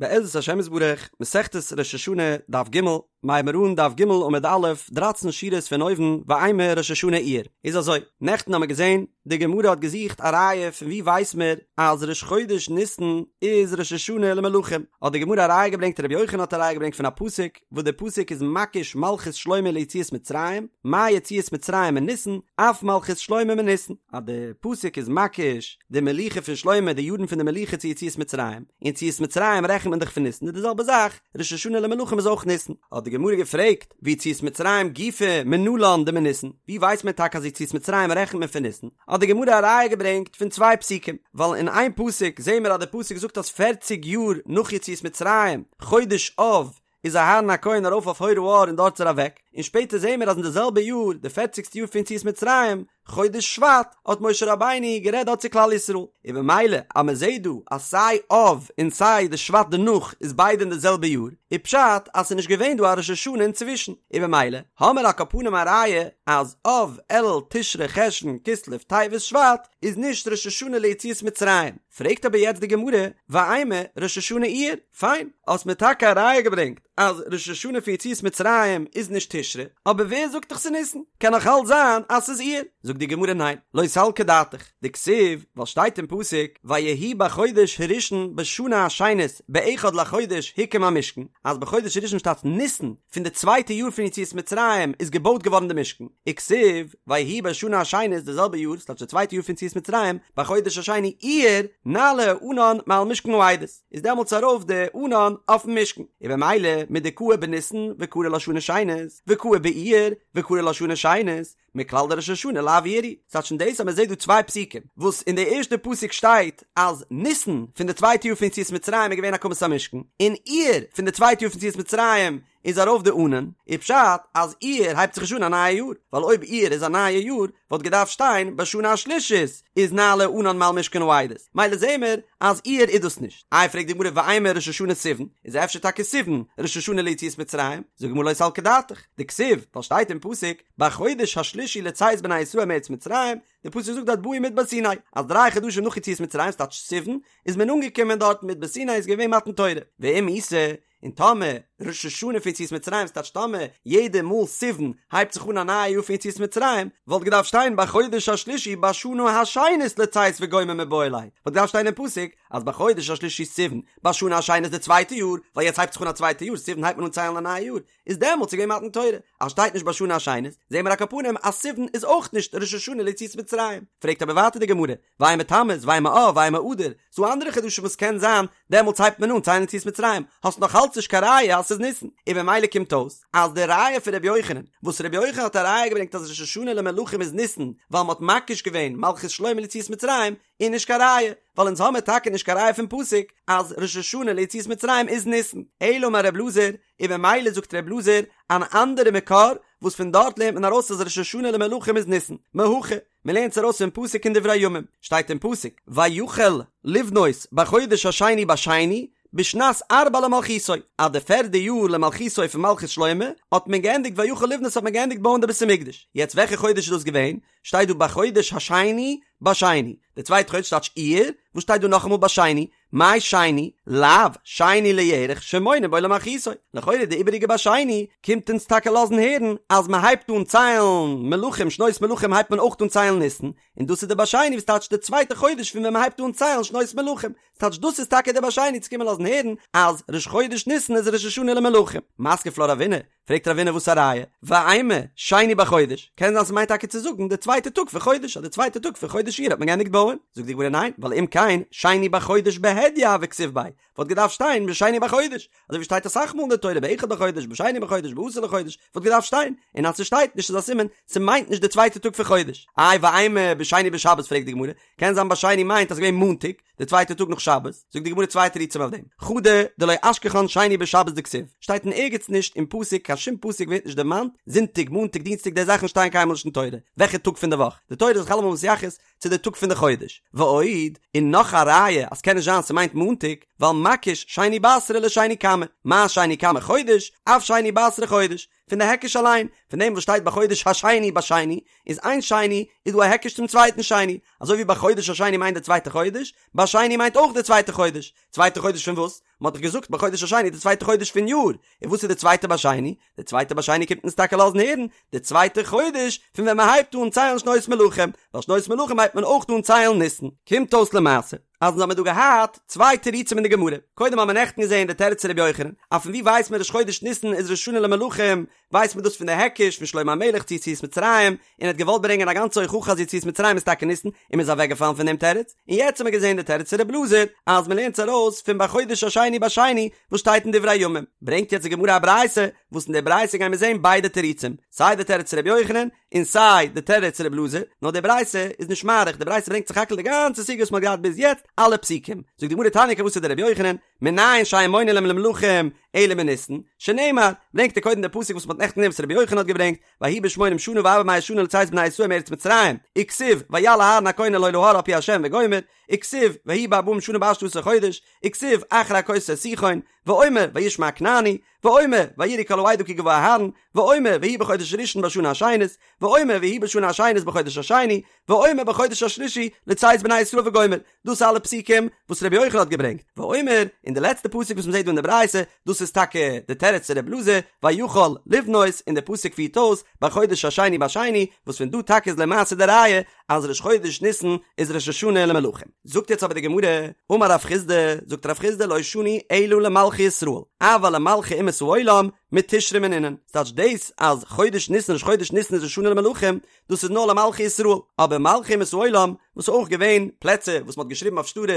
בעזרת השם יתברך, מסכת ראש השנה, דף ג', מיר הייבן אן דף ג' עמוד א', דרייצן שורות פון אויבן, ואימא ראש השנה אייר. איז אזוי, נעכטן האמיר געזען, די גמרא האט געזוכט א ראיה פון וואו ווייס מיר אז ראש חודש ניסן איז ראש השנה למלכים, האט די גמרא א ראיה געברענגט רבי יוחנן האט א ראיה געברענגט פון א פסוק, וואס דער פסוק איז מקיש מלכות שלמה ליציאת מצרים, מה יציאת מצרים מניסן, אף מלכות שלמה מניסן, אז דער פסוק איז מקיש די מלוכה פון שלמה, די יארן פון די מלוכה צו יציאת מצרים, און יציאת מצרים רעכנט מען דאך פון ניסן, איז די זעלבע זאך, ראש השנה למלכים איז אויך ניסן. האט די גמרא געפרעגט, ויציאת מצרים גופא מנלן דמניסן, ווי ווייסט מען טאקע אז יציאת מצרים רעכנט מען פון ניסן? האט די גמרא א ראיה געברענגט פון צוויי פסוקים, ווייל אין איין פסוק זעהן מיר אז די פסוק זאגט אז פערציג יאר נאך יציאת מצרים, חודש אב, איז אהרן הכהן ארויף אויף הר ההר און דארט איז ער אוועק, און שפעטער זעהן מיר אז אין די זעלבע יאר, די פערציגסטע יאר פון יציאת מצרים, חודש שבט, האט משה רבינו גערעדט דארט צו כלל ישראל, און במילא אז מען זעהט דא אז סיי אב און סיי די שבט דערנאך איז ביידע אין די זעלבע יאר, איז פשט אז ס'איז נישט געווען דא א ראש השנה אינצווישן, און במילא האמיר על כל פנים א ראיה אז אב, אלול, תשרי, חשון, כסלו, טבת, שבט איז נישט ראש השנה ליציאת מצרים. פרעגט אבער יעצט די גמרא, ואימא ראש השנה אייר, פיין, האסט מיר טאקע א ראיה געברענגט אז ראש השנה פון יציאת מצרים איז נישט תשרי, אבער ווער זאגט דיך ס'איז ניסן? קען נאך אלץ זיין אז ס'איז אייר. זאגט די גמרא ניין, לא סלקא דעתך, דכתיב, ווייל שטייט אין פסוק, ויהי בחודש הראשון בשנה השנית באחד לחודש הוקם המשכן, אז בחודש הראשון שטייט ניסן, פון די צווייטע יאר פון יציאת מצרים איז געבויט געווארן די משכן, וכתיב, ויהי בשנה השנית די זעלבע יאר, ס'טייטש די צווייטע יאר פון יציאת מצרים, בחודש השני אייר, נעלה הענן מעל משכן העדות, איז דעמאלטס ארויף די ענן אויפן משכן, און במילא מדקאי בניסן וקרי לה שנה שנית, וקאי באייר וקרי לה שנה שנית, מכלל דראש השנה לאו אייר הוא, ס'טייטש פון דאס אז מ'זעט דא צוויי פסוקים, וואס אין די ערשטע פסוק שטייט אז ניסן פון די צווייטע יאר פון יציאת מצרים איז געווען הקמת המשכן, און אייר פון די צווייטע יאר פון יציאת מצרים איז ארויף די ענן, איז פשט אז אייר הייבט זיך נישט אן א נייע יאר, ווייל אויב אייר איז א נייע יאר וואלט געדארפט שטיין בשנה השלישית איז נעלה הענן מעל משכן העדות, מילא זעהן מיר אז אייר איז דאס נישט. איי פרעגט די גמרא ואימא ראש השנה סיוון, איז אפשר טאקע סיוון ראש השנה ליציאת מצרים, זאגט די גמרא לא סלקא דעתך, דכתיב, ווייל שטייט אין פסוק בחודש השלישי לצאת בני ישראל מארץ מצרים, די פסוק זאגט דארט באו מדבר סיני, אז דריי חדשים נאך יציאת מצרים, ס'טייטש סיוון, איז מען אנגעקומען דארט מדבר סיני איז געווען מתן תורה, ואם איתא, און טאמער ראש השנה פון יציאת מצרים ס'טייטש טאמער יעדע מאל סיוון הייבט זיך אן א נייע יאר פון יציאת מצרים, וואלט געדארפט שטיין בחודש השלישי בשנה השנית לצאת וגומר מיבעי ליה, וואלט געדארפט שטיין אין פסוק אז בחודש השלישי סיוון בשנה השנית די צווייטע יאר, ווייל יעצט הייבט זיך אן א צווייטע יאר, סיוון הייבט מען אן ציילן א נייע יאר, איז דעמאלטס איז געווען מתן תורה, אז שטייט נישט בשנה השנית, זעהן מיר על כל פנים אז סיוון איז אויך נישט ראש השנה ליציאת מצרים. פרעגט אבער ווייטער די גמרא, ואימא תמוז, ואימא אב, ואימא אדר, ס'דא אנדערע חדשים וואס קען זיין דעמאלטס הייבט מען אן ציילן יציאת מצרים, האסט נאך אלץ נישט קיין ראיה אז ס'איז ניסן, און במילא קומט אויס אז די ראיה פון ר' יוחנן, וואס ר' יוחנן האט א ראיה געברענגט אז ראש השנה למלכים איז ניסן, ווייל מ'האט מקיש געווען מלכות שלמה ליציאת מצרים, איז נישט קיין ראיה, ווייל אונז האמיר טאקע נישט קיין ראיה פון פסוק אז ראש השנה ליציאת מצרים איז ניסן, אלא אמר ר' אלעזר, און במילא זאגט ר' אלעזר אן אנדערע מקור וואס פון דארט לערנט מען ארויס אז ראש השנה למלכים איז ניסן, מהכא, מען לערנט עס ארויס פון פסוק אין דברי הימים, שטייט אין פסוק, ויחל לבנות בחודש השני בשני, בשנת ארבע למלכותו, אז די פערדע יאר למלכותו פון מלכות שלמה, האט מען געענדיגט ויחל לבנות האט מען געענדיגט בויען די בית המקדש, יעצט וועלכע חודש איז דאס געווען? שטייט דא בחודש השני בשני, די צווייטע חודש טייטש אייר, וואס שטייט דא נאכאמאל בשני? מאי שני? לאו שני לירח שמונין בו למלכותו, לכאורה די איבעריגע בשני קומט אונז טאקע לאזן הערן אז מען הייבט אן ציילן מלכים שנות מלכים הייבט מען אויך אן ציילן ניסן, און דאס איז די בשני וואס טייטש די צווייטע חודש פון ווען מען הייבט אן ציילן שנות מלכים, ס'טייטש דאס איז טאקע די בשני צו קומען לאזן הערן אז ראש חודש ניסן איז ראש השנה למלכים. מתקיף לה רבינא, פרעגט רבינא וואס א ראיה? ואימא שני בחודש, קען זיין ס'מיינט טאקע צו זאגן די צווייטע טאג פון חודש, אז די צווייטע טאג פון חודש אייר האט מען געענדיגט בויען, זאגט די גמרא ניין, ווייל אם כן שני בחודש בהדיא הוה כתיב ביה, וואלט געדארפט שטיין בשני בחודש, אזוי ווי שטייט אסאך מאל אין די תורה באחד לחודש, בשני בחודש, בעשור לחודש, וואלט געדארפט שטיין, און אז ס'שטייט נישט איז א סימן ס'מיינט נישט די צווייטע טאג פון חודש. איי ואימא בשני בשבת פרעגט די גמרא, קען זיין בשני מיינט אז ס'געווען מאנטאג, די צווייטע טאג נאך שבת, זאגט די גמרא צוויי תירוצים אויף דעם, חדא דלא אשכחן שני בשבת דכתיב, שטייט אין ערגעץ נישט אין פסוק, קיין שום פסוק ווערט נישט דערמאנט, זונטאג, מאנטאג, דינסטאג, די זאכן שטייען קיינמאל נישט אין תורה, וועלכע טאג פון די וואך, די תורה איז זיך אלעמאל מתייחס צו די טאג פון די חודש, ועוד, און נאך א ראיה אז קען נישט זיין ס'מיינט מאנטאג, ווייל מקיש שני בתרא לשני קמא, מה שני קמא חודש, אף שני בתרא חודש. פון די היקש אליין, פון דעם וואס שטייט בחודש השני בשני, איז איין שני איז דא א היקש צום צווייטן שני, אזוי ווי בחודש השני מיינט די צווייטע חודש, בשני מיינט אויך די צווייטע חודש, צווייטע חודש פון וואס? מען האט דאך געזאגט בחודש השני די צווייטע חודש פון יאר, און וואס איז די צווייטע בשני? די צווייטע בשני קומט אונז טאקע לאזן הערן, די צווייטע חודש פון ווען מען הייבט אן ציילן שנות מלכים, ווייל שנות מלכים הייבט מען אויך אן ציילן ניסן. קומט אויס למעשה אז אונז האמיר דא געהאט צוויי תירוצים אין די גמרא, קודם האמיר נעכטן געזען די תירוץ פון רבי יוחנן, אז פון ווי ווייסט מען ראש חודש ניסן איז ראש השנה למלכים, ווייסט מען דאס פון די היקש פון שלמה המלך צו יציאת מצרים, און ער האט געוואלט ברענגען א גאנצע הוכחה אז יציאת מצרים איז טאקע ניסן, און מען איז אוועקגעפאלן פון דעם תירוץ, און יעצט האמיר געזען די תירוץ פון רבי אלעזר, אז מען לערנט עס ארויס פון בחודש השני בשני וואס שטייט אין דברי הימים, ברענגט יעצט די גמרא א ברייתא, וואס אין די ברייתא גייען מיר זען ביידע תירוצים, סיי די תירוץ פון רבי יוחנן, און סיי די תירוץ רבי אלעזר, נאר די ברייתא איז נישט מאריך, די ברייתא ברענגט סך הכל די גאנצע סוגיא וואס מען האט געהאט ביז יעצט, אלע פסוקים. זאגט די גמרא תניא כוותיה דרבי יוחנן, מנין שאין מונין להם למלכים אלא מניסן, שנאמר, ברענגט ער קודם די פסוק וואס מען האט נעכטן געזען וואס רבי יוחנן האט געברענגט, ויהי בשמונים שנה וארבע מאות שנה לצאת בני ישראל מארץ מצרים, וכתיב, ויעל אהרן הכהן אל ההר על פי ה' וגומר, וכתיב, ויהי בארבעים שנה בעשתי עשר חודש, וכתיב, אחרי הכותו את סיחון, ואומר, וישמע הכנעני, ואומר, ויראו כל העדה כי גבה אהרן, ואומר, ויהי בחודש הראשון בשנה השנית, ואומר, ויהי בשנה השנית בחודש השני, ואומר בחודש השלישי לצאת בני ישראל וגומר, דאס אלע פסוקים וואס רבי יוחנן האט געברענגט, ואומר, און די לעצטע פסוק וואס מ'זעט דא אין די ברייתא, דאס איז טאקע די תירוץ צו רבי אלעזר, ויכל לבנות, און די פסוק פירט אויס, בחודש השני בשני, וואס פון דא טאקע איז למעשה די ראיה אז ראש חודש ניסן איז ראש השנה למלכים. זאגט יעצט אבער די גמרא, אמר רב חסדא, זאגט רב חסדא לא שנו אלא למלכי ישראל, אבל למלכי אומות העולם מתשרי מנינן, ס'טייטש דאס אז חודש ניסן ראש חודש ניסן איז ראש השנה למלכים, דאס איז נאר למלכי ישראל, אבער מלכי אומות העולם, וואס איז אויך געווען פלעצער וואס מ'האט געשריבן אויף שטרות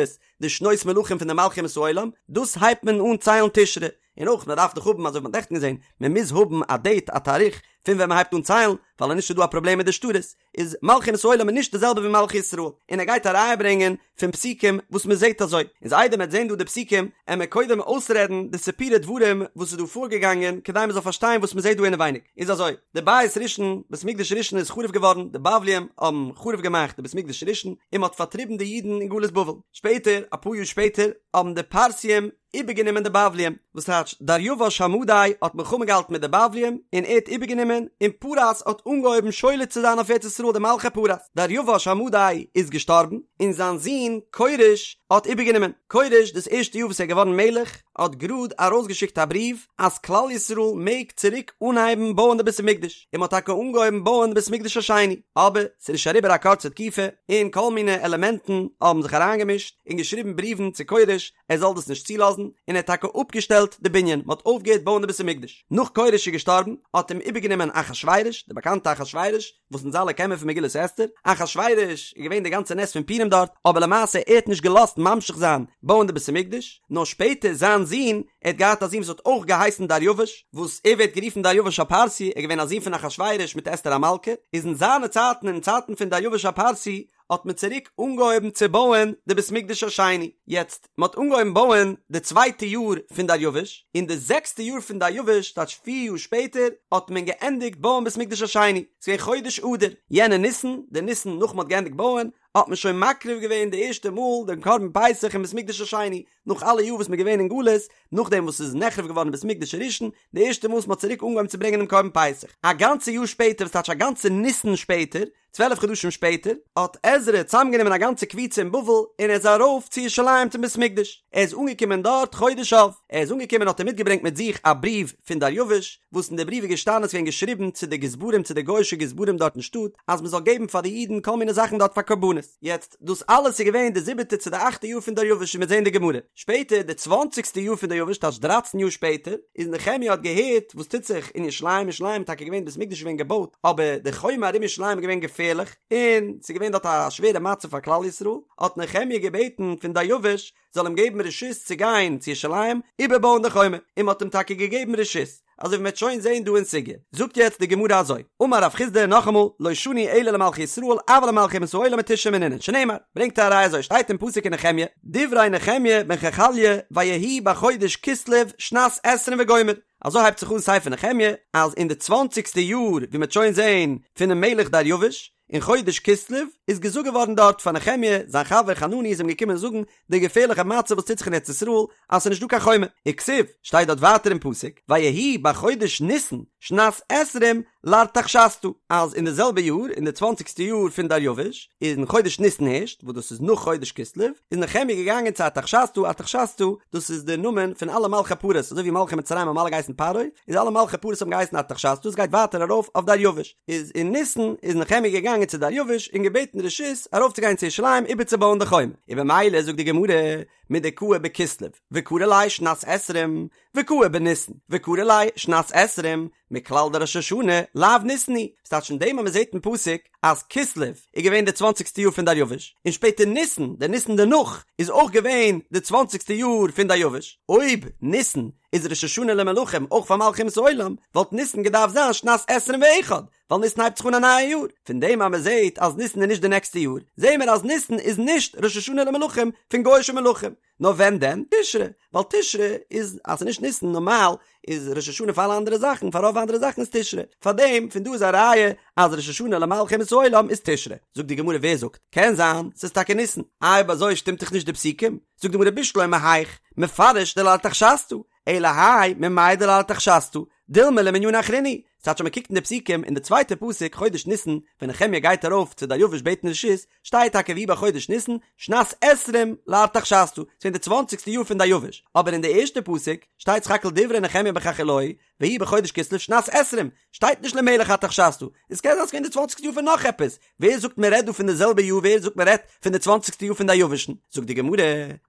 די שנות מלכים פון די מלכי אומות העולם, דאס הייבט מען אן ציילן תשרי, און אויך מען דארף דאך האבן אזוי ווי מ'האט נעכטן געזען, מען מוז האבן א דעיט א תאריך פון ווען מ'הייבט אן ציילן, ווייל אנישט איז דא א פראבלעם מיט די שטרות, איז מלכי אומות העולם איז נישט די זעלבע ווי מלכי ישראל, און ער גייט א ראיה ברענגען פון פסוקים וואס מען זעט אזוי, איז איידער מען וועט זען דא די פסוקים, עמער קודם אויסרעדן די סיפורי דברים וואס איז דא פארגעגאנגען כדי מען זאל פארשטיין וואס מען זעט דא אינעווייניג, איז אזוי, די בית ראשון, בית מקדש ראשון איז חרוב געווארן, די בבלים האבן חרוב געמאכט די בית מקדש ראשון, און מען האט פארטריבן די אידן אין גלות בבל, שפעטער, אפאר יאר שפעטער, האבן די פרסיים איבערגענומען די בבלים, וואס טייטש דריוש המדי האט מלחמה געהאלטן מיט די בבלים און ער האט איבערגענומען, און פרס האט אנגעהויבן שולט צו זיין אויף ארץ ישראל די מלכי פרס, דריוש המדי איז געשטארבן און זיין זון כורש האט איבערגענומען, כורש דאס ערשטע יאר וואס ער איז געווארן מלך האט גראד ארויסגעשיקט א בריוו אז כלל ישראל מעג צוריק אנהייבן בויען די בית המקדש, און מען האט טאקע אנגעהויבן בויען די בית המקדש השני, אבער ס'איז נישט אריבער א קורצע תקופה און כל מיני עלעמענטן האבן זיך אריינגעמישט און געשריבן בריוון צו כורש ער זאל דאס נישט צולאזן, און ער האט טאקע אפגעשטעלט די בנין, מען האט אויפגעהערט בויען די בית המקדש. נאך כורש איז געשטארבן, האט אים איבערגענומען אחשורוש, די באקאנטע אחשורוש, וואס אונז אלע קענען פון מגילת אסתר, אחשורוש איז געווען די גאנצע נס פון פורים דארט, אבער למעשה ער האט נישט געלאזט ממשיך זיין בויען די בית המקדש, נאר שפעטער זיין זון, ער האט געהאט א זון וואס האט אויך געהייסן דריוש, וואס ער ווערט גערופן דריוש הפרסי, ער איז געווען א זון פון אחשורוש מיט אסתר המלכה, איז אין זיינע צייטן, אין צייטן פון דריוש הפרסי, האט מען צוריק אנגעהויבן צו בויען די בית מקדש השני, יעצט מען האט אנגעהויבן בויען די צווייטע יאר פון דריוש, אין די זעקסטע יאר פון דריוש, טייטש פיר יאר שפעטער, האט מען געענדיגט בויען בית מקדש השני, ס'איז געווען חודש אדר, יענע ניסן, די ניסן נאך מען האט געענדיגט בויען, האט מען שוין מקריב געווען די ערשטע מאל דעם קרבן פסח אין בית מקדש השני, נאך אלע יאר וואס מען איז געווען אין גלות, נאכדעם וואס ס'איז נחרב געווארן בית מקדש הראשון, די ערשטע מאל וואס מען האט צוריק אנגעהויבן צו ברענגען דעם קרבן פסח, א גאנצע יאר שפעטער, וואס טייטש א גאנצע ניסן שפעטער, צוועלף חדשים שפעטער האט עזרא צוזאמגענומען א גאנצע קבוצה אין בבל און ער איז ארויף צו ירושלים צום בית מקדש, ער איז אנגעקומען דארט חודש אב, ער איז אנגעקומען האט ער מיטגעברענגט מיט זיך א בריוו פון דריוש, וואס אין די בריוו איז געשטאנען עס איז געווען געשריבן צו די גזברים צו די גוי'אישע גזברים דארט אין שטאט אז מען זאל געבן פאר די אידן כל מיני זאכן דארט פאר קרבנות, יעצט דאס אלעס איז געווען די זיבעטע צו די אכטע יאר פון דריוש ווי מ'וועט זען אין די גמרא, שפעטער די צוואנציגסטע יאר פון דריוש טייטש דרייצן יאר שפעטער, איז נחמיה האט געהערט וואס טוט זיך אין ירושלים, ירושלים איז טאקע געווען בית מקדש איז געווען געבויט, אבער די חומה ארום ירושלים איז געווען געפערליך, און ס'איז געווען דארט א שווערע מצב פאר כלל ישראל, האט נחמיה געבעטן פון דריוש זאל אים געבן רשות צו גיין צו ירושלים איבערבויען די חומה, און מ'האט אים טאקע געגעבן רשות. אזוי ווי מ'וועט שוין זעהן דא אין סוגיא. זאגט יעצט די גמרא אזוי, אמר רב חסדא נאכאמאל, לא שנו אלא למלכי ישראל אבל למלכי אומות העולם מתשרי מנינן, שנאמר, ברענגט ער א ראיה אזוי שטייט אין פסוק אין נחמיה, דברי נחמיה בן חכליה ויהי בחודש כסלו שנת עשרים וגומר, אזוי הייבט זיך אן ספר נחמיה, אז אין די צוואנציגסטע יאר, ווי מ'וועט שוין זעהן, פונעם מלך דריוש. אין חודש כסלו איז געזאגט געווארן דארט פאר נחמיה, זיין חבר חנני איז אים געקומען זאגן די געפערליכע מצב וואס טוט זיך אין ארץ ישראל אז ס'איז נישט דא קיין חומה, וכתיב, שטייט דארט ווייטער אין פסוק, ויהי בחודש ניסן שנת עשרים לארתחשסתא, אז אין די זעלבע יאר, אין די צוואנציגסטע יאר פון דריווש, אין חודש ניסן הערשט, וואס דאס איז נאך חודש כסלו, איז נחמיה געגאנגען צו ארתחשסתא, ארתחשסתא, דאס איז די נאמען פון אלע מלכי פרס, אזוי ווי מלכי מצרים האבן אלע געהייסן פרעה, איז אלע מלכי פרס האבן געהייסן ארתחשסתא, עס גייט ווייטער ארויף אויף דריווש. איז אין ניסן איז נחמיה געגאנגען צו דריווש און געבעטן רשות ארויפצוגיין צו ירושלים איבערצובויען די חומה, און במילא זאגט די גמרא מדקאי בכסלו וקרי ליה שנת עשרים וקאי בניסן וקרי ליה שנת עשרים מכלל דראש השנה לאו ניסן הוא, ס'טייטש פון דעם אז מ'זעט אין פסוק אז כסלו איז געווען די צוואנציגסטע יאר פון דריווש און שפעטער ניסן, די ניסן דערנאך, איז אויך געווען די צוואנציגסטע יאר פון דריווש, אויב ניסן איז ראש השנה למלכים אויך פאר מלכי אומות העולם, וואלט ניסן געדארפט זיין שנת עשרים ואחד, ווייל ניסן הייבט זיך אן א נייע יאר, פון דעם אז מען זעט אז ניסן איז נישט די נעקסטע יאר, זעען מיר אז ניסן איז נישט ראש השנה למלכים פון גוי'אישע מלכים, נאר ווען דען? תשרי, ווייל תשרי איז אז ס'איז נישט ניסן נארמאל איז ראש השנה פאר אלע אנדערע זאכן, פאר רוב אנדערע זאכן איז תשרי, פאר דעם פון דא איז א ראיה אז ראש השנה למלכי אומות העולם איז תשרי, זאגט די גמרא ווער זאגט? קען זיין ס'איז טאקע ניסן, איי אויב אזוי שטימט דאך נישט די פסוקים, זאגט די גמרא בשלמא היאך מפרש דלארתחשסתא, אלא האי ממאי דלארתחשסתא, דילמא למנינא אחרינא הוא, ס'טייטש אז מ'קוקט אין די פסוקים אין די צווייטע פסוק חודש ניסן ווען נחמיה גייט ארויף צו דריווש בעטן רשות, שטייט טאקע ויהי בחודש ניסן שנת עשרים לארתחשסתא, ס'געווען די צוואנציגסטע יאר פון דריווש, אבער אין די ערשטע פסוק שטייט סך הכל דברי נחמיה בן חכליה ויהי בחודש כסלו שנת עשרים, שטייט נישט למלך ארתחשסתא, עס קען זיין ס'געווען די צוואנציגסטע יאר פון נאך עפעס, ווער זאגט מען רעדט דא פון די זעלבע יאר ווער זאגט מען רעדט פון די צוואנציגסטע יאר פון דריווש'ן, זאגט די גמרא,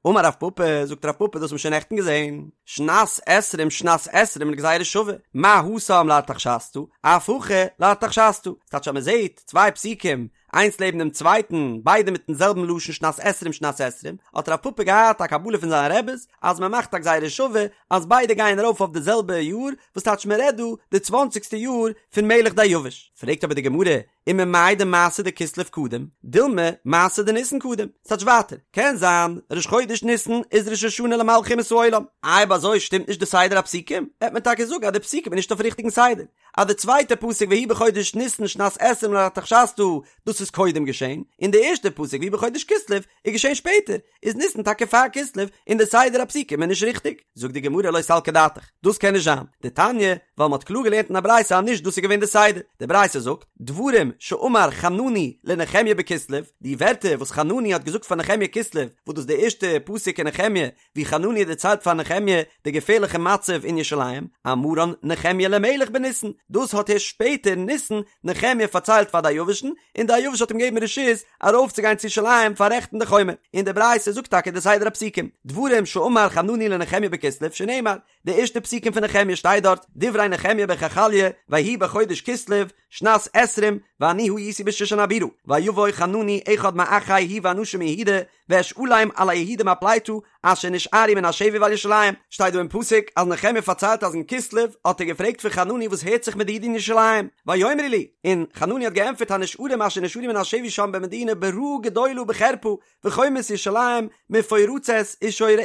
אמר רב פפא, זאגט רב פפא דאס האט מען שוין נעכטן געזען, שנת עשרים שנת עשרים לגזירה שווה, מה התם לארתחשסתא, אף הכא לארתחשסתא, ס'טייטש אז מען זעט צוויי פסוקים איינס לעבן דעם צווייטן, ביידע מיטן זעלבן לשון שנת עשרים שנת עשרים, האט רב פפא געהאט א קבלה פון זיינע רעבעס אז מען מאכט א גזירה שווה אז ביידע גייען ארויף אויף די זעלבע יאר, וואס טייטש מען רעדט דא די צוואנציגסטע יאר פון מלך דריווש. פרעגט אבער די גמרא, וממאי דמעשה דכסלו קדים, דילמא מעשה דניסן קדים, ס'טייטש ווייטער, קען זיין ראש חודש ניסן איז ראש השנה למלכי אומות העולם, אויב אזוי שטימט נישט די סדר הפסוקים, וועט מען טאקע זאגן אז די פסוקים איז נישט אויפן ריכטיגן סדר, אז די צווייטע פסוק ויהי בחודש ניסן שנת עשרים לארתחשסתא דאס איז קודם געשען, און די ערשטע פסוק ויהי בחודש כסלו איז געשען שפעטער, איז ניסן טאקע פאר כסלו און די סדר הפסוקים איז נישט ריכטיג. זאגט די גמרא לא סלקא דעתך, דאס קען נישט זיין, דתניא, ווייל מ'האט קלאר געלערנט אין א ברייתא אז נישט דאס איז געווען די סדר, די ברייתא זאגט, דברים שאמר חנני לנחמיה בכסלו, די ווערטער וואס חנני האט געזאגט פאר נחמיה כסלו, וואס דאס איז די ערשטע פסוק אין נחמיה, ווי חנני דערציילט פאר נחמיה די געפערליכע מצב אין ירושלים, אמרן נחמיה למלך בניסן, דאס האט ערשט שפעטער אין ניסן נחמיה פארציילט פאר דריוש'ן, און דריוש האט אים געגעבן רשות ארויפצוגיין צו ירושלים פאררעכטן די חומה, און די ברייתא זאגט טאקע די סדר הפסוקים, דברים שאמר חנני לנחמיה בכסלו שנאמר, די ערשטע פסוקים פון נחמיה שטייט דארט, דברי נחמיה בן חכליה, ויהי בחודש כסלו, שנת עשרים, ואני הייתי בשושן הבירה, ויבא חנני אחד מאחי הוא ואנשים מיהודה, ואשאלם על היהודים הפליטה אשר נשארו מן השבי ועל ירושלים, שטייט דא אין פסוק אז נחמיה פארציילט אז אין כסלו האט ער געפרעגט פון חנני וואס הערט זיך מיט די אידן אין ירושלים, ויאמרו לי, און חנני האט געענטפערט הנשארים אשר נשארו מן השבי שם במדינה ברעה גדולה ובחרפה, וחומות ירושלים מפורצות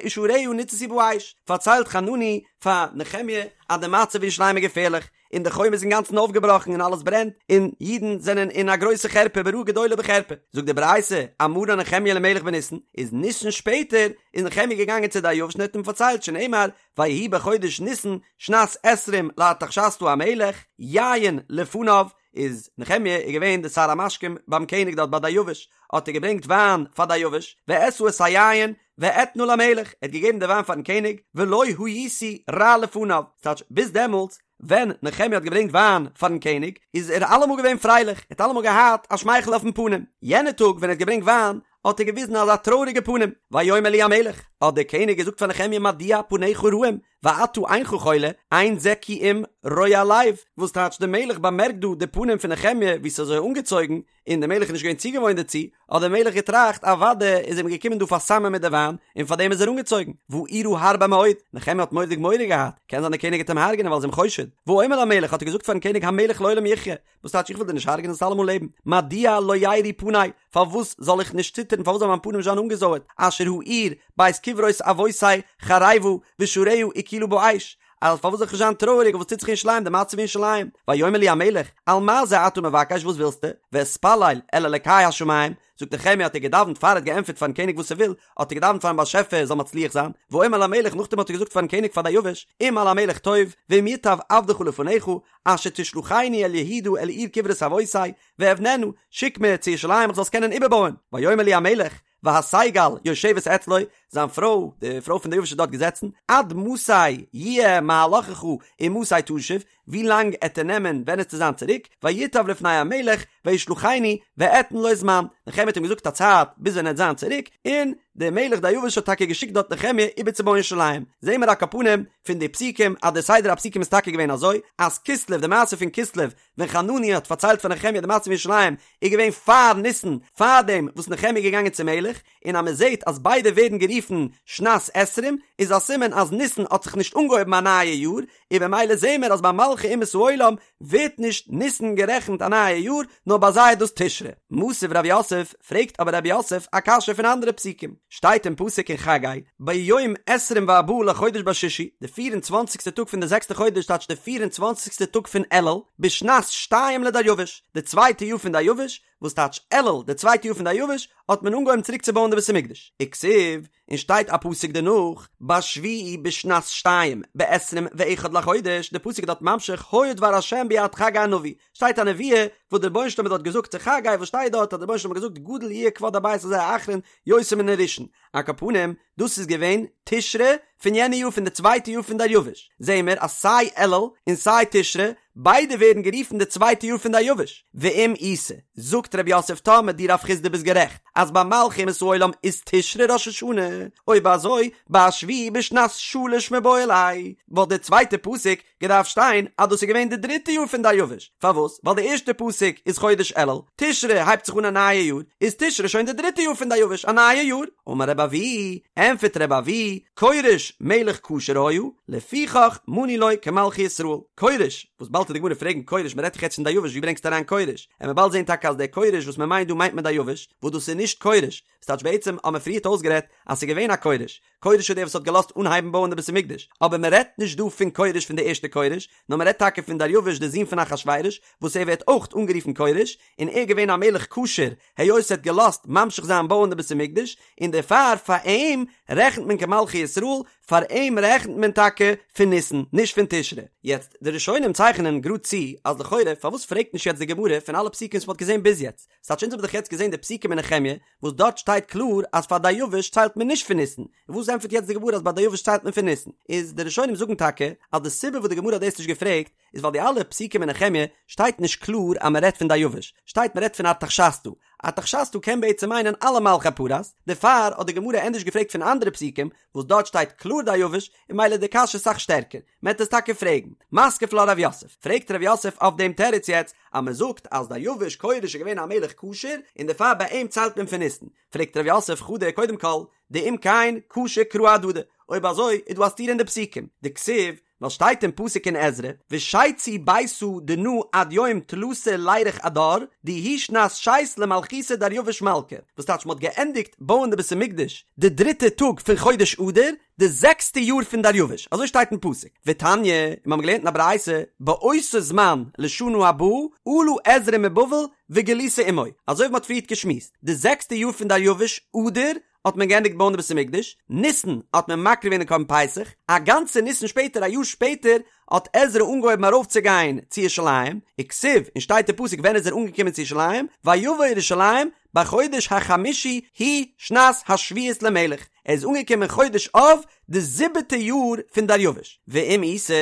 ושעריה ניצתו באש, פארציילט חנני פאר נחמיה אז די מצב אין ירושלים איז געפערליך, און די חומה איז אינגאנצן אויפגעבראכן און אלעס ברענט, און אידן זענען אין א גרויסע חרפה ברעה גדולה ובחרפה. זאגט די ברייתא, אמרן נחמיה למלך בניסן, איז ניסן שפעטער איז נחמיה געגאנגען צו דריוש און האט אים פארציילט שנאמר ויהי בחודש ניסן שנת עשרים לארתחשסתא המלך, יין לפניו, איז נחמיה איז געווען די שר המשקים ביים קעניג דארט ביי דריוש, האט ער געברענגט וויין פאר דריוש, ואשא את היין ואתנה למלך, ער האט געגעבן די וויין פארן קעניג, ולא הייתי רע לפניו, ס'טייטש ביז דעמאלטס ווען נחמיה האט געברענגט וויין פארן קעניג איז ער אלעמאל געווען פרייליך, ער האט אלעמאל געהאט א שמייכל אויפן פנים, יענע טאג ווען ער האט געברענגט וויין האט ער געוויזן אזא טרויעריגע פנים, ויאמר לי המלך, האט דער קעניג געזאגט פאר נחמיה מדוע פניך רעים ואתה אינך חולה, אין זה כי אם רוע לב, וואס טייטש דער מלך באמערקט דא די פנים פון נחמיה ווי ס'איז אזוי אנגעצויגן, און דער מלך איז נישט געווען צוגעוואוינט דערצו, האט דער מלך געטראכט, אוודאי איז אים געקומען דא פארסאמען מיט די וויין, און פאר דעם איז ער אנגעצויגן, ואירא הרבה מאוד, נחמיה האט מורא'דיג מורא געהאט, קען זיין דער קעניג גייט אים הרג'נען ווייל ער איז אים חושד, ואומר למלך האט ער געזאגט פארן קעניג המלך לעולם יחיה, וואס טייטש איך וויל דיר נישט הרג'נען זאלסט אלעמאל לעבן, מדוע לא ירעו פני, פארוואס זאל איך נישט ציטערן, פארוואס זאל מיין פנים נישט זיין אנגעזויערט, אשר העיר בית קברות אבותי חרבה ושעריה אוכלה באש. אז פארוואס זאל איך נישט זיין טרויעריג אויף וואס טוט זיך אין ירושלים, די מצב אין ירושלים, ויאמר לי המלך, על מה זה אתה מבקש וואס ווילסטו, ואתפלל אל אלקי השמים, זאגט נחמיה האט ער געדאווענט פאר ער האט געענטפערט פארן קעניג וואס ער וויל, האט ער געדאווענט פארן באשעפער ער זאל מצליח זיין, ואומר למלך נאכדעם האט ער געזאגט פארן קעניג פאר דריוש, אם על המלך טוב, ואם ייטב עבדך לפניך, אשר תשלחני אל יהודה אל עיר קברות אבותי, ואבננה, שיק מיר צו ירושלים איך זאל עס קענען איבערבויען, ויאמר לי המלך, והשגל יושבת אצלו, זיין פרוי, די פרוי פון דריוש איז דארט געזעצן, עד מתי יהיה מהלכך ומתי תשוב, ווי לאנג עט ער נעמען ווען עסטו זיין צוריק, וייטב לפני המלך וישלחני ואתן לו זמן, נחמיה האט אים געזאגט א צייט ביז ווען ער עט זיין צוריק, און דער מלך דריוש האט טאקע געשיקט דארט נחמיה איבערצובויען ירושלים, זעהן מיר על כל פנים פון די פסוקים אז דער סדר הפסוקים איז טאקע געווען אזוי, אז כסלו, די מעשה פון כסלו, ווען חנני האט פארציילט פאר נחמיה די מצב אין ירושלים איז געווען פאר ניסן, פאר דעם וואס נחמיה איז געגאנגען צום מלך, און אז מען זעט אז ביידע ווערן גערופן שנת עשרים, איז א סימן אז ניסן האט זיך נישט אנגעהויבן א נייע יאר, און במילא זעהן מיר אז ביי מלכי אומות העולם ווערט נישט ניסן גערעכנט א נייע יאר, נאר ביי זיי איז דאס תשרי. מתיב רב יוסף, פרעגט אבער רב יוסף א קשיא פון אנדערע פסוקים, שטייט אין פסוק אין חגי, ביום עשרים וארבעה לחודש בשישי, די פיר און צוואנציגסטע טאג פון די זעקסטע חודש טייטש די פיר און צוואנציגסטע טאג פון אלול, בשנת שתיים לדריוש, די צווייטע יאר פון דריוש, וואס טייטש אלול, די צווייטע יאר פון דריוש, האט מען אנגעהויבן צוריק צו בויען די בית המקדש. וכתיב, און שטייט א פסוק דערנאך, בשביעי בשנת שתיים, בעשרים ואחד לחודש, די פסוק איז דארט ממשיך, היה דבר השם ביד חגי הנביא, שטייט א נבואה וואס דער רבונו של עולם האט דארט געזאגט צו חגי, וואס שטייט דארט אז דער רבונו של עולם האט געזאגט גדול יהיה כבוד הבית הזה האחרון יותר מן הראשון, על כל פנים, דאס איז געווען תשרי פון יענע יאר פון די צווייטע יאר פון דריוש, זעהן מיר אז סיי אלול און סיי תשרי ביידע ווערן גערופן די צווייטע יאר פון דריוש, ואם איתא, זאגט רב יוסף טאמער דו רב חסדא ביסט גערעכט אז ביי מלכי אומות העולם איז תשרי ראש השנה, אויב אזוי בשביעי בשנת שלש מיבעי ליה, וואלט די צווייטע פסוק געדארפט שטיין אז דאס איז געווען די דריטע יאר פון דריוש, פארוואס? ווייל די ערשטע פסוק איז חודש אלול, תשרי הייבט זיך אן א נייע יאר, איז תשרי שוין די דריטע יאר פון דריוש, א נייע יאר. אמר רבי אבהו, ענטפערט רבי אבהו, כורש מלך כשר היה, לפיכך מנו לו כמלכי ישראל. כורש, וואס באלד וועט די גמרא פרעגן כורש, מען רעדט דאך יעצט פון דריוש, ווי ברענגסטו אריין כורש? עמיר באלד זען טאקע אז דער כורש וואס מען מיינט דא מיינט מען דריוש, וואס דאס איז נישט כורש, ס'טייטש בעצם האבן מיר פריערט אויסגערעדט אז ס'איז געווען א כורש, כורש איז דער וואס האט געלאזט אנהייבן בויען די בית המקדש, אבער מען רעדט נישט דא פון כורש פון די ערשטע כורש, נאר מען רעדט טאקע פון דריוש דער זון פון אחשורוש, וואס ער ווערט אויך אנגערופן כורש, און ער איז געווען א מלך כשר, היות ער האט געלאזט ממשיך זיין בויען די בית המקדש, און דערפאר פאר אים רעכנט מען כמלכי ישראל, פאר אים רעכנט מען טאקע פון ניסן, נישט פון תשרי. יעצט, די ראשונים צייכענען גראד צו, אז לכאורה פארוואס פרעגט נישט יעצט די גמרא פון אלע פסוקים וואס מען האט געזען ביז יעצט? ס'טייטש אונז האבן דאך יעצט געזען די פסוקים אין נחמיה, וואס דארט שטייט קלאר אז פאר דריוש ציילט מען נישט פון ניסן, און וואס ענטפערט יעצט די גמרא אז ביי דריוש ציילט מען פון ניסן? איז די ראשונים זאגן טאקע אז די סיבה וואס די גמרא האט דאס נישט געפרעגט איז ווייל די אלע פסוקים אין נחמיה שטייט נישט קלאר אז מען רעדט פון דריוש, שטייט מען רעדט פון ארתחשסתא, ארתחשסתא קען בעצם מיינען אלע מלכי פרס, דערפאר האט די גמרא ענדערש געפרעגט פון אנדערע פסוקים וואס דארט שטייט קלאר דריוש, און ממילא איז די קשיא אסאך שטערקער. מען וועט עס טאקע פרעגן. מתקיף לה רב יוסף, פרעגט רב יוסף אויף דעם תירוץ יעצט, אז מען זאגט אז דריוש כורש איז געווען א מלך כשר, און דערפאר ביי אים ציילט מען פון ניסן. פרעגט רב יוסף חדא קודם כל, דאם כן קשו קראי אהדדי, אויב אזוי איז דא א סתירה אין די פסוקים, דכתיב, ווייל שטייט אין פסוק אין עזרא, ושיצו ביתא דנא עד יום תלתא לירח אדר, די היא שנת שית למלכותא דריוש מלכא, וואס טייטש מען האט געענדיגט בויען די בית המקדש די דריטע טאג פון חודש אדר, די זעקסטע יאר פון דריוש, אזוי שטייט אין פסוק, ותניא, און מיר האבן געלערנט אין א ברייתא, באותו זמן לשנה הבאה, עלה עזרא מבבל וגלותו עמו, אזוי ווי מען האט פריערט געשמועסט, די זעקסטע יאר פון דריוש, אדר, האט מען געענדיגט בויען די בית המקדש, ניסן האט מען מקריב געווען די קרבן פסח, א גאנצע ניסן שפעטער, א יאר שפעטער, האט עזרא אנגעהויבן ארויפצוגיין צו ירושלים, וכתיב, און שטייט אין פסוק ווען איז ער אנגעקומען צו ירושלים, ויבא ירושלים בחודש החמישי הוא שנת השביעית למלך, ער איז אנגעקומען חודש אב די זיבעטע יאר פון דריוש, ואם איתא,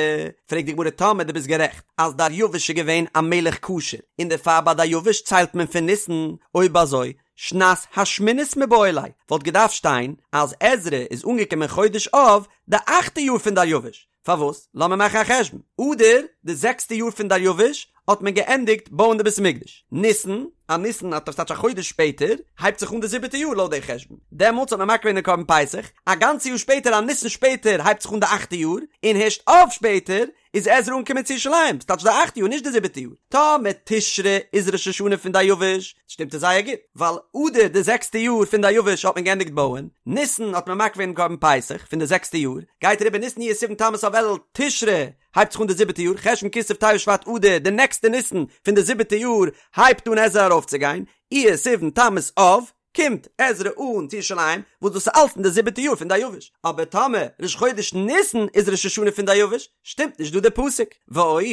פרעגט די גמרא טאמער דו ביסט גערעכט אז דריוש איז געווען א מלך כשר און דערפאר ביי דריוש ציילט מען פון ניסן, אויב אזוי שנת השמינית מיבעי ליה וואלט געדארפט שטיין אז עזרא איז אנגעקומען חודש אב די אכטע יאר פון דריוש, פארוואס? לאמיר מאכן א חשבון. אדר, די זעקסטע יאר פון דריוש, האט מען געענדיגט בויען די בית המקדש. ניסן, א ניסן האט ס'טייטש א חודש שפעטער, הייבט זיך אן די זיבעטע יאר לויט די חשבון. דעמאלטס האט מען מקריב געווען די קרבן פסח. א גאנצע יאר שפעטער, א ניסן שפעטער, הייבט זיך אן די אכטע יאר, און הערשט אב שפעטער, איז עזרא אנגעקומען צו ירושלים, ס'טייטש די אכטע יאר נישט די זיבעטע יאר. טאמער תשרי איז ראש השנה פון דריוש, שטימט עס זייער גוט, ווייל אדר די זעקסטע יאר פון דריוש האט מען געענדיגט בויען, ניסן האט מען מקריב געווען קרבן פסח פון די זעקסטע יאר, גייט אריבער ניסן אייר סיוון תמוז אב אלול תשרי הייבט זיך אן די זיבעטע יאר, חשון כסלו טבת שבט אדר די נעקסטע ניסן פון די זיבעטע יאר הייבט אן עזרא ארויפצוגיין, אייר סיוון תמוז אב, קומט עזרא אן צו ירושלים, וואס דאס איז אלץ אין די זיבעטע יאר פון דריוש, אבער טאמער ראש חודש ניסן איז ראש השנה פון דריוש, שטימט נישט דא די פסוק. ועוד,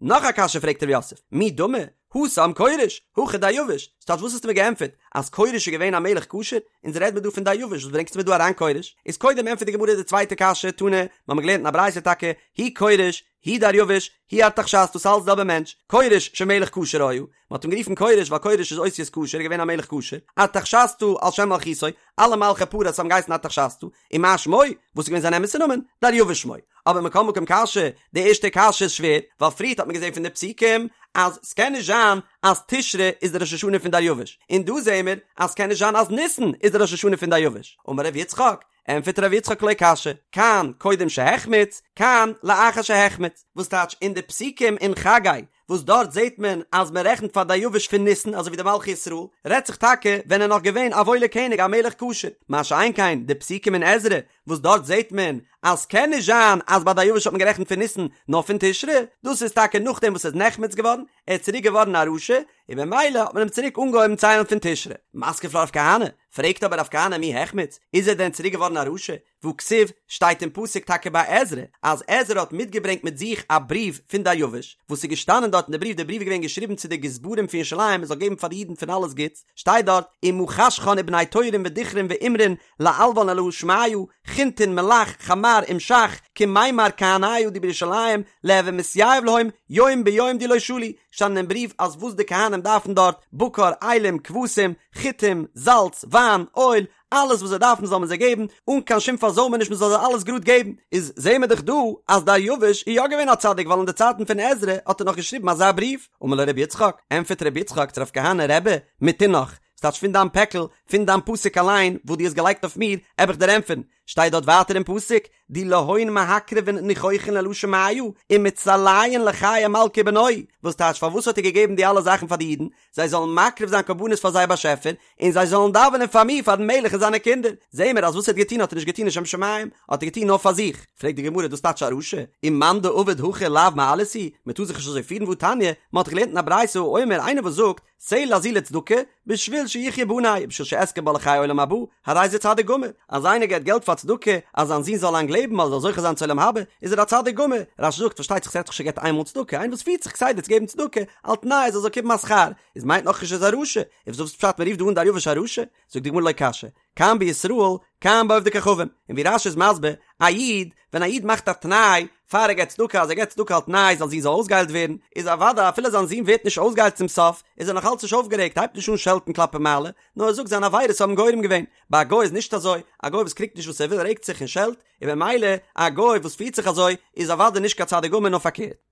נאך א קשיא פרעגט ר' יוסף, מי דמי, התם כורש, הכא דריוש, ס'טייטש וואס האסטו מיר געענטפערט, אז כורש איז געווען א מלך כשר? אונז רעד מיר דא פון דריוש, וואס ברענגסטו מיר דא אריין כורש? איז קודם ענטפערט די גמרא די צווייטע קשיא, תנא, מ'האמיר געלערנט אין א ברייתא טאקע, הוא כורש, הוא דריוש, הוא ארתחשסתא ס'אלץ די זעלבע מענטש, כורש שמלך כשר היה, מען האט אים גערופן כורש ווייל כורש איז אותיות כשר, געווען א מלך כשר, ארתחשסתא על שם מלכותו, אלע מלכי פרס האבן געהייסן ארתחשסתא, ומה שמו, וואס איז געווען זיין אמת'ע נאמען? דריוש שמו. אבער מכל מקום קשיא, די ערשטע קשיא איז שווער, ווייל פריערט האט מען געזען פון די פסוקים אז ס'קען נישט זיין אז תשרי איז די ראש השנה פון דריוש, און דא זעען מיר אז ס'קען נישט זיין אז ניסן איז די ראש השנה פון דריוש. אמר ר' יצחק, ענטפערט ר' יצחק לא קשיא, כאן קודם שהחמיץ, כאן לאחר שהחמיץ, וואס טייטש אין די פסוקים אין חגי וואס דארט זעט מען אז מען רעכנט פאר דריוש פון ניסן אזוי ווי די מלכי ישראל, רעדט זיך טאקע ווען ער נאך געווען א וואוילער קעניג א מלך כשר, מה שאין כן די פסוקים אין עזרא וואס דארט זעט מען אז ס'קען נישט זיין אז ביי דריוש האט מען גערעכנט פון ניסן נאר פון תשרי, דאס איז טאקע נאכדעם וואס ער איז נחמץ געווארן, ער איז צוריק געווארן א רשע, און במילא האט מען אים צוריק אנגעהויבן ציילן פון תשרי. מתקיף לה רב כהנא, פרעגט אבער רב כהנא מי החמיץ, איז ער דען צוריק געווארן א רשע? והכתיב, שטייט אין פסוק טאקע ביי עזרא, אז עזרא האט מיטגעברענגט מיט זיך א בריוו פון דריוש, וואס איז געשטאנען דארט אין די בריוו, די בריוו איז געווען געשריבן צו די גזברים פון ירושלים מען זאל געבן פאר די אידן פון אלעס גוטס, שטייט דארט, ומה חשכון ובני תורין ודכרין ואמרין לעלוון אלהא שמיא, חינטין מלח חמר ומשח, כמימר כהניא די בירושלים, ליהוי מתייב להון, יום ביום די לא שלו, שטאנען אין בריוו אז וואס די כהנים דארפן דארט, בקר, אילים, כבשים, חיטים, זאלץ, וויין, אויל, אלעס וואס זיי דארפן זאל מען זיי געבן, אן קיין שום פארזוימעניש מען זאל זיי אלעס גראד געבן, איז זעהן מיר דאך דא אז דריוש איז יא געווען א צדיק ווייל אין די צייטן פון עזרא האט ער נאך געשריבן אזא בריוו, אמר לו רבי יצחק, ענטפערט רבי יצחק צו רב כהנא רבי, מטונך, ס'טייטש פון דיין פעקל, פון דיין פסוק אליין וואס דו האסט געלייגט אויף מיר, עב איך דיר ענטפערן, שטייט דארט ווייטער אין פסוק, די להון מהקריבין ניחוחין לאלהא שמיא, ומצליין לחיי מלכא ובנוהי, וואס טייטש פארוואס האט ער געגעבן די אלע זאכן פאר די אידן, זיי זאלן מקריב זיין קרבנות פאר זייער באשעפער, און זיי זאלן דאווענען פאר מיר פארן מלך און זיינע קינדער. זעהן מיר אז וואס ער האט געטון האט ער נישט געטון לשם שמים, האט ער געטון נאר פאר זיך. פרעגט די גמרא דאס טייטש א רשע? ומאן דעביד הכי לאו מעלייתא היא, מען טאר זיך נישט אזוי פירן והתניא, מען האט געלערנט אין א ברייתא האומר איינער וואס זאגט, סלע זו לצדקה, בשביל שיחיו בני, ובשביל שאזכה בה לחיי עולם הבא, הרי זה צדיק גמור. אז איינער געבט געלט פאר צדקה, אז זיין זון זאל לאנג לעבן אדער זאל זוכה זיין צו עולם הבא, איז ער א צדיק גמור. רש"י זאגט, פארשטייט זיך ס'רעדט זיך נישט ער געבט איינמאל צדקה, איינער וואס פירט זיך כסדר צו געבן צדקה, על תנאי אז ער זאל קומען א שכר, איז מיינט נאכנישט ער איז א רשע. איז וואס פשט מ'רופט דא אן דריוש א רשע? זאגט די גמרא לא קשיא, כאן בישראל, כאן בעובדי כוכבים. און ווי רש"י איז מסביר, א איד, ווען א איד מאכט א תנאי פאר ער געבט צדקה אז ער געבט צדקה על תנאי זיין זון זאל אויסגעהיילט ווערן, איז אוודאי אפילו זיין זון ווערט נישט אויסגעהיילט צום סוף, איז ער נאך אלץ נישט אויפגערעגט, הייבט נישט אן שעלטן כלפי מעלה, נאר ער זאגט זיינע עבירות האבן גורם געווען. ביי א גוי איז נישט אזוי, א גוי וואס קריגט נישט וואס ער וויל רעגט זיך און שעלט, און במילא א גוי וואס פירט זיך אזוי איז אוודאי נישט קיין צדיק גמור נאר פארקערט.